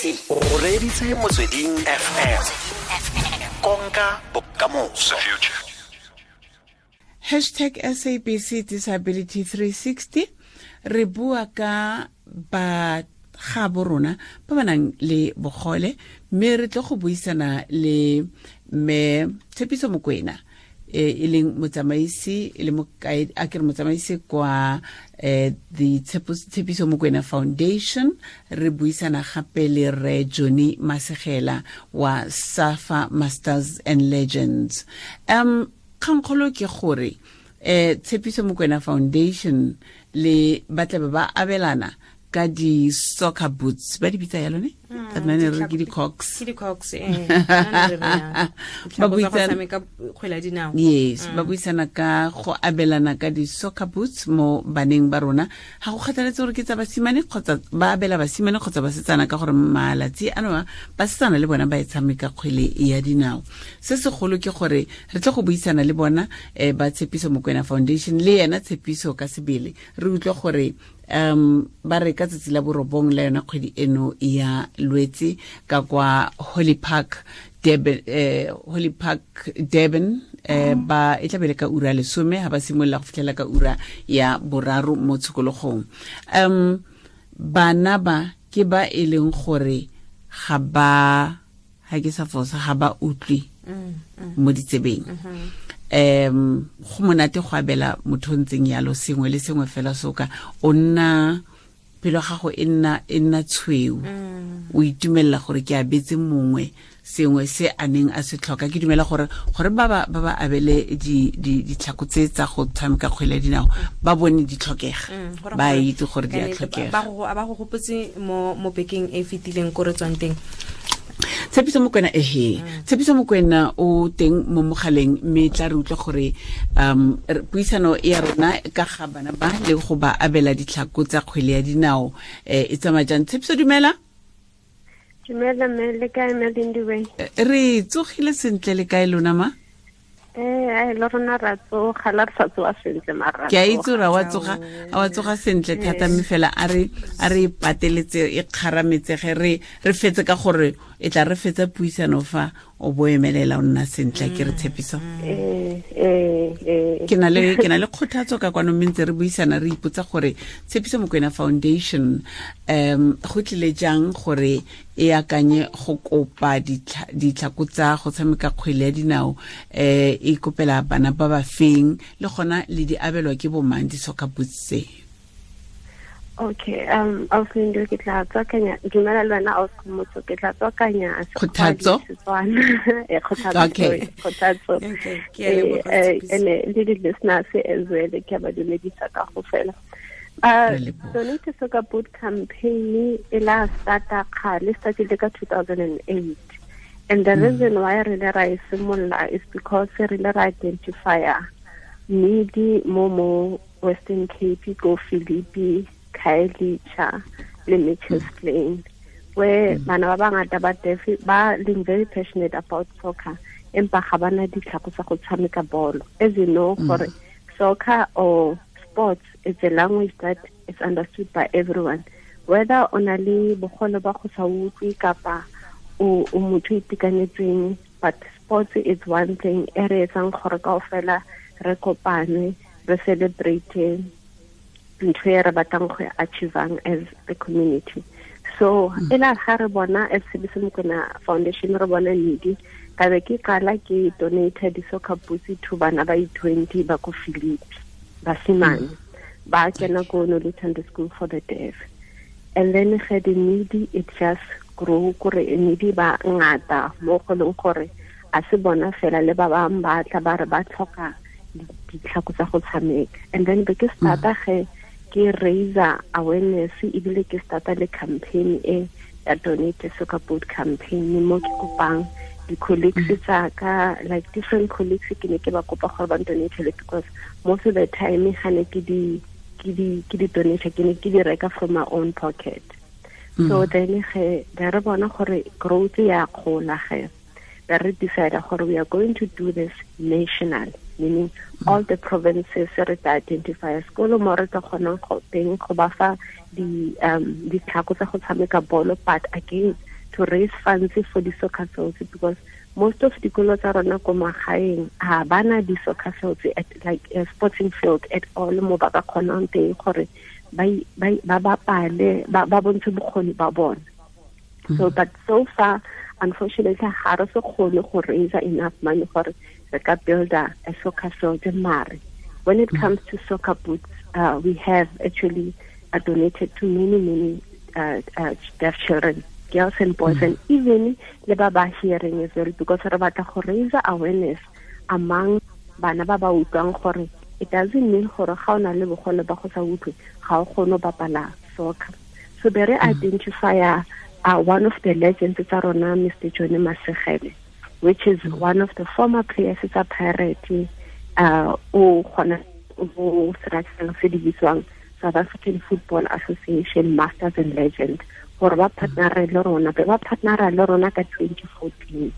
SABC. O reditse Motsweding FM. Konka bokamoso. Hashtag SABC Disability 360. Re bua ka ba ga bo rona ba ba nang le bogole, mme re tle go buisana le mme Tshepiso Mokwena, e leng motsamaisi, e le mokaedi, a ke re motsamaisi kwa the Tshepiso Mokwena Foundation. Re buisana gape le re Johnny Masegela wa Safa Masters and Legends. Kgankgolo ke gore Tshepiso Mokwena Foundation le ba tla be ba abelana ka di-soccer boots, ba di bitsa yalo ne? Ka nna ne re ke di-cox. Ke di-cox, eh. Ba buisana kgwele ya dinao. Yes, ba buisana ka go abelana ka di-soccer boots mo baneng ba rona, ga go kgathaletse gore ke tsa basimane kgotsa ba abela basimane kgotsa basetsana, ka gore malatsi ano a basetsana le bona ba e tshameka kgwele ya dinao. Se segolo ke gore re tle go buisana le bona, ba Tshepiso Mokwena Foundation le yena Tshepiso ka sebele, re utlwe gore ba re ka tsatsi la 9 la yona kgwedi eno ya Lwetse ka kwa Holly Park Durban, Holly Park Durban, ba e tla bele ka ura 10 ha ba simolola go fitlhela ka ura ya 3 mo tshokologong. Bana ba ke ba e leng gore ga ba, ha ke sa fosa, ga ba utlwe mo ditsebeng. Go monate go abela motho o ntseng yalo sengwe le sengwe fela, soka o nna pelo gago e nna tshweu, o itumelela gore ke abetse mongwe sengwe se a neng a se tlhoka. Ke dumela gore ba ba abele ditlhako tse tsa go tshameka kgwele ya dinao, ba bone di tlhokega, ba itse gore di a tlhokega. Ba go gopotse mo bekeng e fetileng ko re tswang teng. Tshepiso Mokwena, ehe, Tshepiso Mokwena o teng mo mogaleng, mme tla re utlwa gore puisano ya rona ka ga bana ba le go ba abela ditlhako tsa kgwele ya dinao e tsamaya jang. Tshepiso, dumela. Dumela mme, le kae mme Lindiwe? Re tsogile sentle, le kae lona ma? Ai, le rona ra tsoga, la re sa tsoga sentle mara. Ke a itse gore a wa tsoga sentle thata, mme fela a re pateletse e kgarametsege, re fetse ka gore e tla re fetsa puisano fa o bo emelela o nna sentle, ke re Tshepiso. Eh eh eh. Ke na le kgothatso ka kwano, mme ntse re buisana re ipotsa gore Tshepiso Mokwena Foundation go tlile jang gore e akanye go kopa ditlhako tsa go tshameka kgwele ya dinao, e kopela bana ba ba feng, le gona le di abelwa ke bomang di-soccer boots tse? Okay, Ausi, ke tla tswakanya, dumela le wena ausi Motho, ke tla tswakanya Kgothatso? Setswana. Kgothatso. Okay. Sorry, Kgothatso. Okay, ke a leboga, Tshepiso. Ene le di-listeners as well, ke a ba dumedisa ka go fela. Re leboga. Donate Soccer Boot campaign e la starta kgale, startile ka 2008. And the reason why re le ra e simolola is because re le ra identifya need mo Western Cape, go Philippi, Khayelitsha le Mitchells Plain, where bana ba bangata ba deaf, ba leng very passionate about soccer, empa ga bana ditlhako tsa go tshameka bolo. As you know, gore soccer or sports is a language that is understood by everyone, whether o na le bogole ba go sa utlwe kapa o motho o itekanetseng, but sports is one thing e re etsang gore kaofela re kopane, re celebrate ntho e re batlang go e achievang as a community. So e la ga re bona as Tshepiso Mokwena Foundation, re bona need, ka be ke qala ke donate di-soccer boots to bana ba i-20 ba ko Philippi, basimane ba kena ko Noluthando School for the Deaf. And then ge the need, it just grow, kore need ba ngata mo go leng gore a se bona fela, le ba bangwe ba tla ba re ba tlhoka ditlhako tsa go tshameka. And then be ke starta ge ke raise awareness, ebile ke starta le campaign e ya Donate Soccer Boot campaign, mo ke kopang di-colleagues tsa ka, like different colleagues, ke ne ke ba kopa gore ba donatele, because most of the time ga ne ke di donate, ke ne ke di reka from my own pocket. So then ge be re bona gore growth ya gola, ge be re decide gore we are going to do this national, meaning all the provinces re tla identify sekolo mo re tla kgonang go teng go ba fa di ditlhako tsa go tshameka bolo. But again, to raise funds for the soccer fields, because most of dikolo tsa rona ko magaeng ha bana di soccer fields at like a sporting field at all mo ba ka kgonang teng gore ba bapale ba bontshe bokgoni ba bona. So but so far unfortunately ga re se kgone go raise enough money gore re ka build a soccer field. Mare when it comes to soccer boots, we have actually donated to many deaf children, girls and boys, and even le ba ba hearing as well, because re batla go raise awareness among bana ba ba utlwang gore it doesn't mean gore ga o na le bogole ba go sa utlwe ga o kgone go bapala soccer. So be re identify one of the legends tsa rona, Mr. Johnny Masegele, which is one of the former players tsa Pirate, o kgona go seratseng se di bitswang South African Football Association Masters and Legends, gore ba partnera le rona, ba partnera le rona ka 2014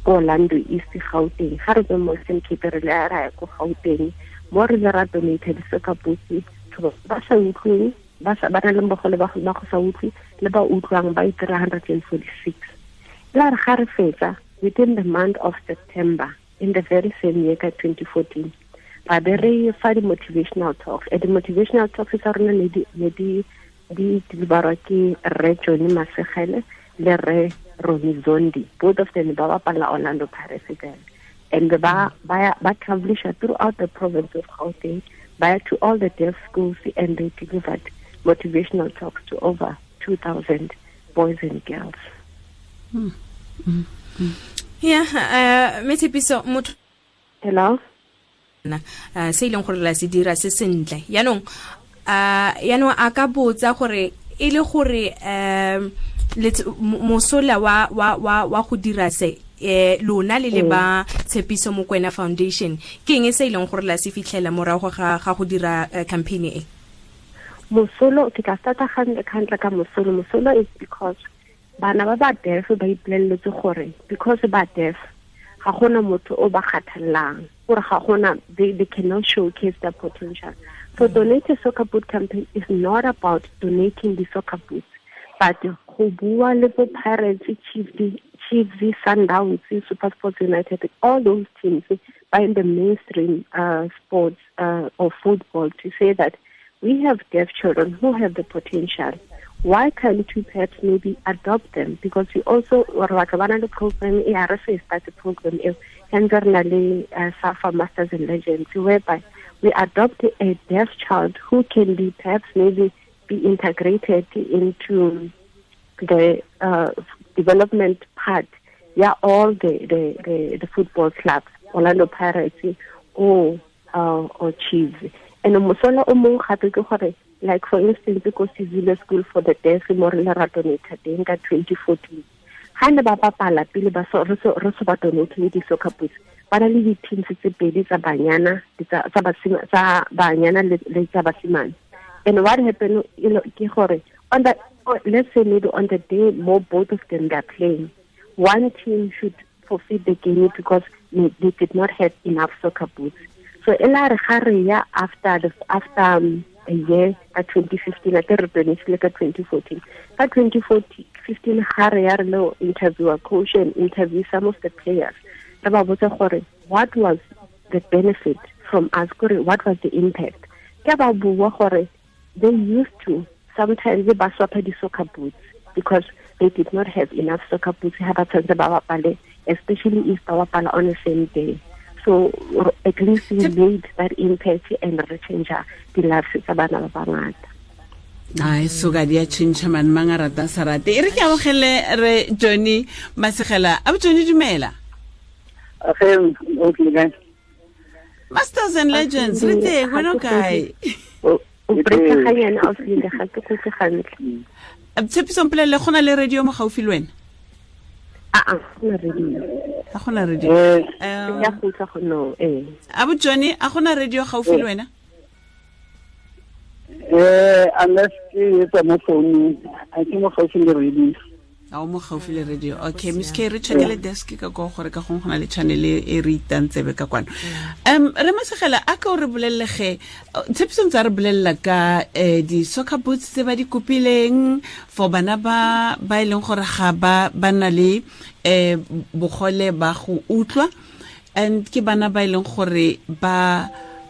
ko Orlando East Gauteng. Ga re tswe mo Western Cape re le ra ya ko Gauteng, mo re le ra donate di-soccer boots to ba sa utlweng, ba na le bogole ba go sa utlwe le ba utlwang ba 346. La re ga re fetsa within the month of September in the very same year ka 2014, ba be re fa di-motivational talks. And the motivational talks tsa rona ne di deliverwa ke Rre Johnny Masegele le Rre Ronnie Zondi. Both of them ba bapala Orlando Pirates then. And ba travelisha throughout the province of Gauteng, ba to all the deaf schools, and they delivered motivational talks to over 2,000 boys and girls. Yeah, Tshepiso motho. Hello. Se ileng gore la se dira se sentle. Yaanong a ka botsa gore e le gore mosola wa go dira se lona le le ba Tshepiso Mokoena Foundation, ke eng se ileng gore la se fitlhela morago ga go dira campaign e? Mosolo ke tla starta gantle ka mosolo. Mosolo is because bana ba ba deaf ba ipoleletse gore because ba deaf ga gona motho o ba kgathallang, gore ga gona they cannot showcase their potential. So Donate a Soccer Boot campaign is not about donating the soccer boots, but go bua le bo Pirates, Chiefs, Sundowns, SuperSport United, all those teams by in the mainstream sports or football, to say that we have deaf children who have the potential. Why can't we perhaps maybe adopt them? Because we also the program, ARSA started program, SAFA Masters and Legends, whereby we adopt a deaf child who can be perhaps maybe be integrated into the development part. Yeah, all the football clubs, Orlando Pirates or Chiefs. And mosola o mongwe gape ke gore, like for instance, ko Sizile School for the Deaf mo re le ra donate teng ka 2014. Ha ne ba bapala pele ba so re so ba donate le di-soccer boots, ba na le di-teams tse pedi tsa banyana, tsa banyana le tsa basimane. And what happened, you know, ke gore on the, let's say maybe on the day more both of them are playing, one team should forfeit the game because they did not have enough soccer boots. So ela re ga re ya after a year at 2015, I think like 2014. At 2015, ga re ya re lo interview a coach and interview some of the players. Re ba botsa gore what was the benefit from us, gore what was the impact? Ke ba bua gore they used to sometimes ba swapa di soccer boots because they did not have enough soccer boots ha ba tshwanetse ba bapale, especially if ba bapala on the same day. So at least we made that impact and re change the lives tsa bana ba bangata. Ai so ga di a change man mang a rata sa rate. E re ke amogele re Johnny Masegela. A Johnny dumela. Okay, guys. Masters and Legends, re teng wena o kae? O breaka ga yena o file ga ke go gantle. Tshepiso mpolelle go na le radio mo gaufi le wena? A gona radio. A gona radio. Ya go tla go no eh. Abu Johnny, a gona radio gaufi le wena? Unless ke etsa mo phone, a ke mo gaufi le radio. A o mo gaufi le radio? Okay, Miss K, re checkele desk ka ko gore ka gongwe go na le channel e re itang tsebe ka kwano. Re Masegela, a ka o re bolelele ge Tshepiso ntse a re bolelela ka di-soccer boots tse ba di kopileng for bana ba ba e leng gore ga ba ba na le bogole ba go utlwa, and ke bana ba e leng gore ba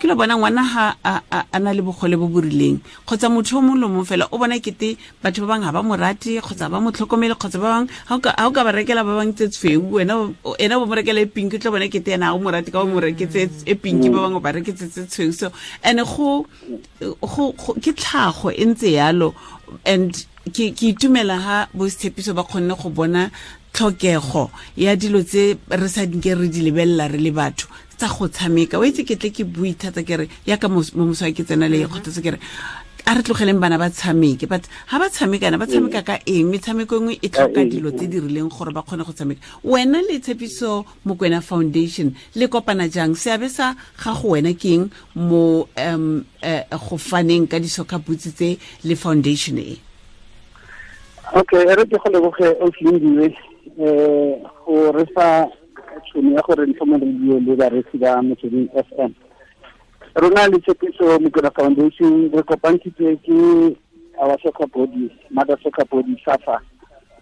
ke lo bona ngwana ha a na le bogole bo bo rileng kgotsa motho o mongwe le mongwe fela o bona kete batho ba bangwe ga ba mo rate kgotsa ba mo tlhokomele, kgotsa ba bangwe ha o ka ba rekela ba bangwe tse tshweu, wena ena bo mo rekela e pink, o tla bona kete ena ha o mo rate ka o mo reketse e pink, ba bangwe ba reketse tse tshweu. So and go ke tlhago e ntse yalo, and ke itumela ha bo Tshepiso ba kgonne go bona tlhokego ya dilo tse re sa dinke re di lebelela re le batho tsa go tshameka. O itse ke tle ke bue thata ke re yaka mo moswa ke tsena le kgothatso ke re a re tlogeleng bana ba tshameke, but ha ba tshamekana ba tshameka ka eng? Metshameko e nngwe e tlhoka dilo tse di rileng gore ba kgone go tshameka. Wena le Tshepiso Mokoena Foundation le kopana jang? Seabe sa gago wena ke eng mo go faneng ka di-soccer boots tse le foundation e? Okay, e re ke go leboge Oslindile go re fa tšhono ya gore ntlho mo radio le bareetsi ba Motsweding FM. Rona le Tshepiso Mokoena Foundation re kopantshitswe ke our soccer body, mother soccer body SAFA,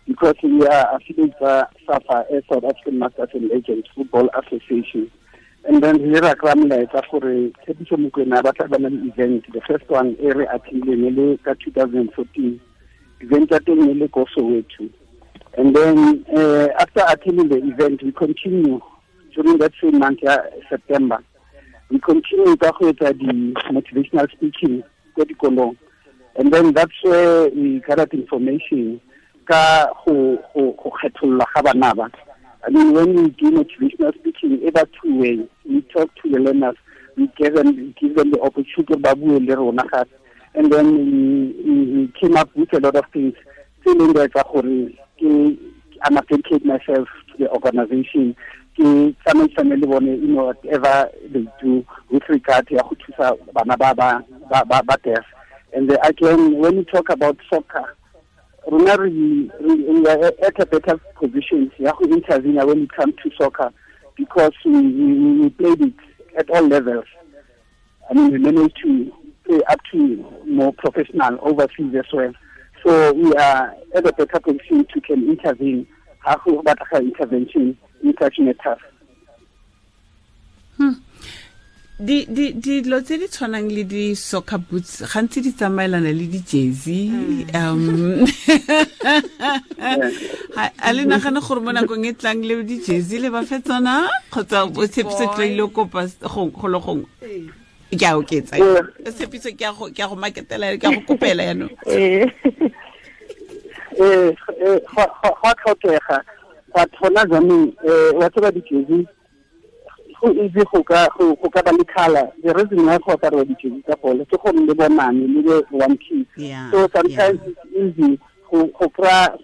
because we are affiliates ba SAFA, South African Masters and Legends Football Association. And then re ra kry-a molaetsa gore Tshepiso Mokoena ba tla ba na le event, the first one e re attendileng e le ka 2014. Event ya teng e le ko Soweto. And then after attending the event, we continue during that same month, September. We continue ka go etsa di motivational speaking ko dikolong. And then that's where we gathered information ka go kgetholla ga bana ba. I mean, when we do motivational speaking, e ba two ways. We talk to the learners, we give them the opportunity ba bue le rona gape. And then we came up with a lot of things. Tse leng di etsa gore I'm dedicate myself to the organization. Ke tsamaisane le bone, you know, whatever they do with regard ya go thusa bana ba deaf. And again, when we talk about soccer, rona we are at a better position ya go intervene when it comes to soccer, because we played it at all levels. I mean, we managed to play up to more professional overseas as well. So we are at a better position to can intervene. Ha go batlega intervention in such matters. Dilo tse di tshwanang le di-soccer boots gantsi di tsamaelana le di-jersey. A le nagane gore mo nakong e tlang le di-jersey le ba fe tsona kgotsa o Tshepiso tla ile kopa go le gongwe? Ke a oketsa. Tshepiso ke a go maketela, ke a go kopela yaanong. Go a tlhokega, but gona jaanong wa tseba di-jersey go easy go ka ba le colour. The reason why go apariwa di-jersey tsa bolo ke gore le bonane le be one piece. So sometimes it's easy go kry-a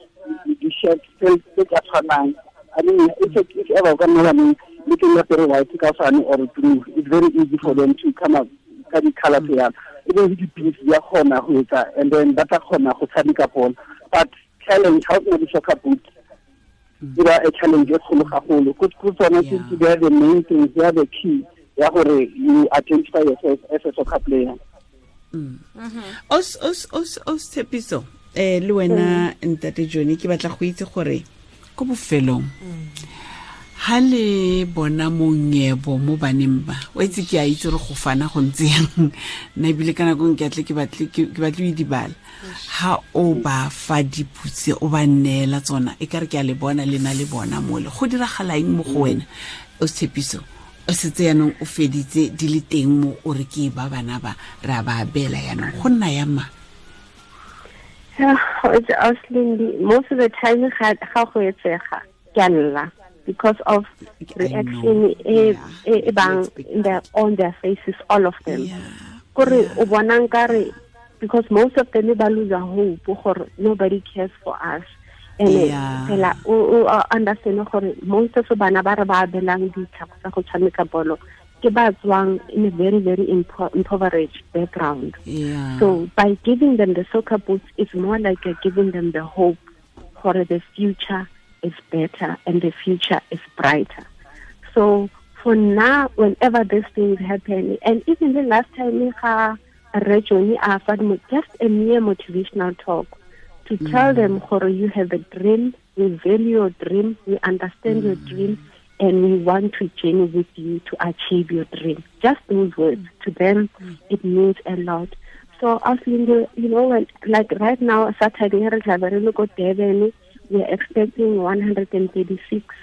di-shirt tse ka tshwanang. I mean, if ever o ka nna baneng le ke apere white ka tshwane or blue, it's very easy for them to come up ka di-colour tse yalo. E be le di-piece di a kgona go etsa, and then ba tla kgona go tshameka bolo. But challenge, ha o sena di-soccer boots, e ba a challenge e kgolo gagolo. Ko tsone ke they are the main things, they are the key ya gore you identify yourself as a soccer player. Os Tshepiso, le wena Ntate Johnny, ke batla go itse gore ko bofelong ha le bona monyebo mo baneng ba, o itse ke a itse gore go fana go ntse yang, nna ebile ka nako ke atle ke batle o dibala. Ha o ba fa diputse o ba neela tsona, e ka re ke a le bona le na le bona mole, go diragala eng mo go wena o Tshepiso? O setse yaanong o feditse di le teng mo o re ke ba bana ba re a ba abela yaanong, go nna yang ma? Most of the time ga go etsega ke a lla because of reaction e bang on their faces, all of them. Kore o bona nkare because most of them ba lose hope gore nobody cares for us. And fela o understand gore most of bana ba re ba abelang ditlhako tsa go tshameka bolo ke ba tswang in a very, very impoverished background. So by giving them the soccer boots, it's more like you're giving them the hope gore the future is better and the future is brighter. So for now, whenever these things happen, and even the last time just a mere motivational talk to tell them, gore you have a dream, we value your dream, we understand your dream, and we want to journey with you to achieve your dream. Just those words, to them, it means a lot. So, you know, when, like right now, Saturday, we are expecting 136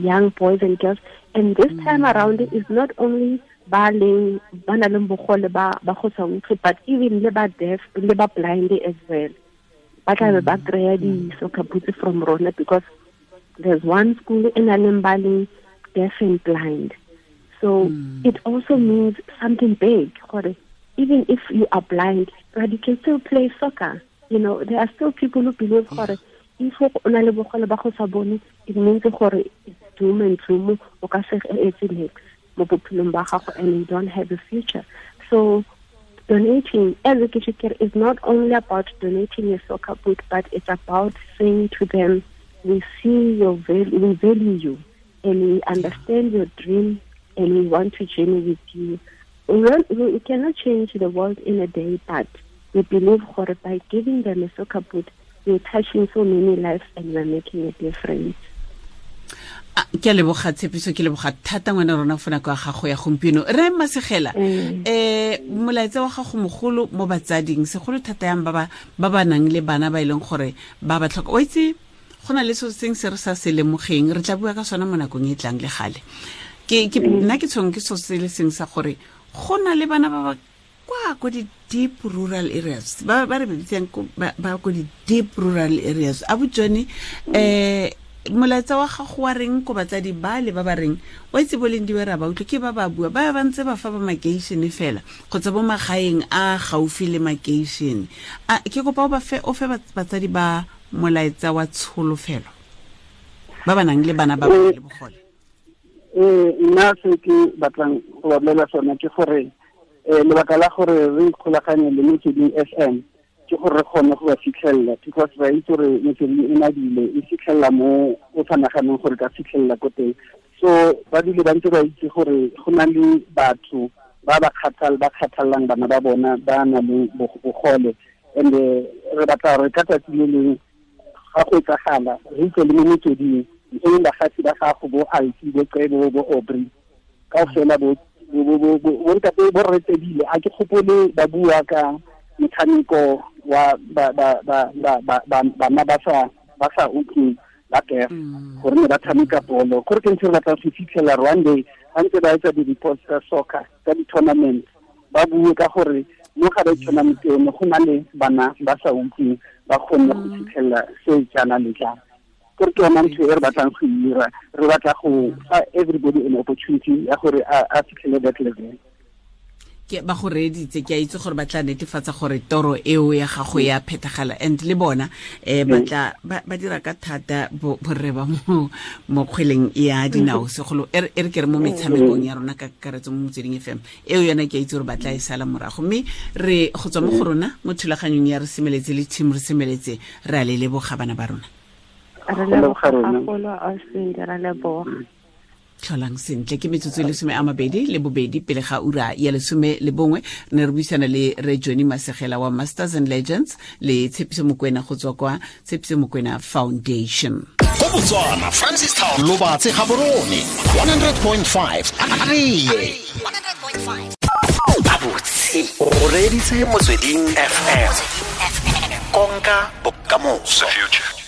young boys and girls. And this time around, it's not only ba nang le bogole ba go sa utlwe, but even le ba deaf, le ba blind as well. Ba tla be ba kry-a di-soccer boots from rona, because there's one school in Alembali, deaf and blind. So it also means something big. Even if you are blind, but you can still play soccer. You know, there are still people who believe if o na le bogole ba go sa bone, it means gore it's doom and gloom, o ka se etse niks mo bophelong ba gago, and you don't have a future. So donating as a kitchen is not only about donating a soccer boot, but it's about saying to them, we see your value, we value you, and we understand your dream, and we want to journey with you. We cannot change the world in a day, but we believe by giving them a soccer boot, we're touching so many lives and we're making a difference. Ke a leboga Tshepiso, ke leboga thata ngwana rona fona kwa gago ya gompieno. Re Masegela, molaetsa wa gago mogolo mo batsading, segolo thata yang ba ba nang le bana ba e leng gore ba ba tlhoka. O itse go na le so seng se re sa se lemogeng, re tla bua ka sona mo nakong e tlang le gale. Ke nna ke tshweng ke so se le seng sa gore go na le bana ba ba kwa ko di deep rural areas, ba re bitsang ba ko di deep rural areas. A botsone molaetsa wa gago wa reng ko batsadi ba le ba ba reng wa itse boleng di ba utlwe ke ba ba bua ba ba ntse ba fa ba makeishene fela kgotsa bo magaeng a gaufi le makeishene. A ke kopa o fe batsadi ba molaetsa wa tsholofelo ba ba nang le bana ba ba le bogole. Nna se ke batlang go ba bolela sona ke gore lebaka la gore re ikgolaganye le Motsweding FM ke gore re kgone go ba fitlhelela, because ra itse gore Motsweding e nadile e fitlhelela mo o sa naganeng gore ka fitlhelela ko teng. So ba dule ba ntse ba itse gore go na le batho ba ba kgathallang bana ba bona ba na le bogole, and re batla gore ka tsatsi le leng ga go etsagala re utlwe le mo Motsweding, e leng bagatsi ba gago bo Alfi, bo Cebo, bo Aubrey, kaofela bo ntate bo retebile. A ke gopole ba bua ka metshameko wa bana ba sa utlweng ba deaf, gore ne ba tshameka bolo. Gore ke ntse re batla go fitlhela one day ga ntse ba etsa di-reports tsa soccer, tsa di-tournament, ba bue ka gore mo ga ba tournament eno go na le bana ba sa utlweng ba kgonne go fitlhelela se jaana le jaana. Gore ke yona ntho e re batlang go dira, re batla go fa everybody an opportunity ya gore a fitlhele that level. Ke ba go reeditse, ke a itse gore ba tla netefatsa gore toro eo ya gago ya phethagala, and le bona ba tla ba dira ka thata borre ba mo kgweleng ya dinao, segolo e re ke re mo metshamekong ya rona ka kakaretso mo Motsweding FM eo yona ke a itse gore ba tla e sala morago. Mme re go tswa mo go rona mo thulaganyong ya Re Semeletse le team Re Semeletse, re a le leboga bana ba rona. Re leboga gagolo, Austin, re leboga. Tlholang sentle. Ke metsotso e 22 pele ga ura ya 11. Ne re buisana le Re Johnny Masegela wa Masters and Legends le Tshepiso Mokwena go tswa kwa Tshepiso Mokwena Foundation. Go Botswana, Francistown, Lobatse, Gaborone, 100.5. 100.5. Abotse o reditse Motsweding FM. Konka bokamoso. The future.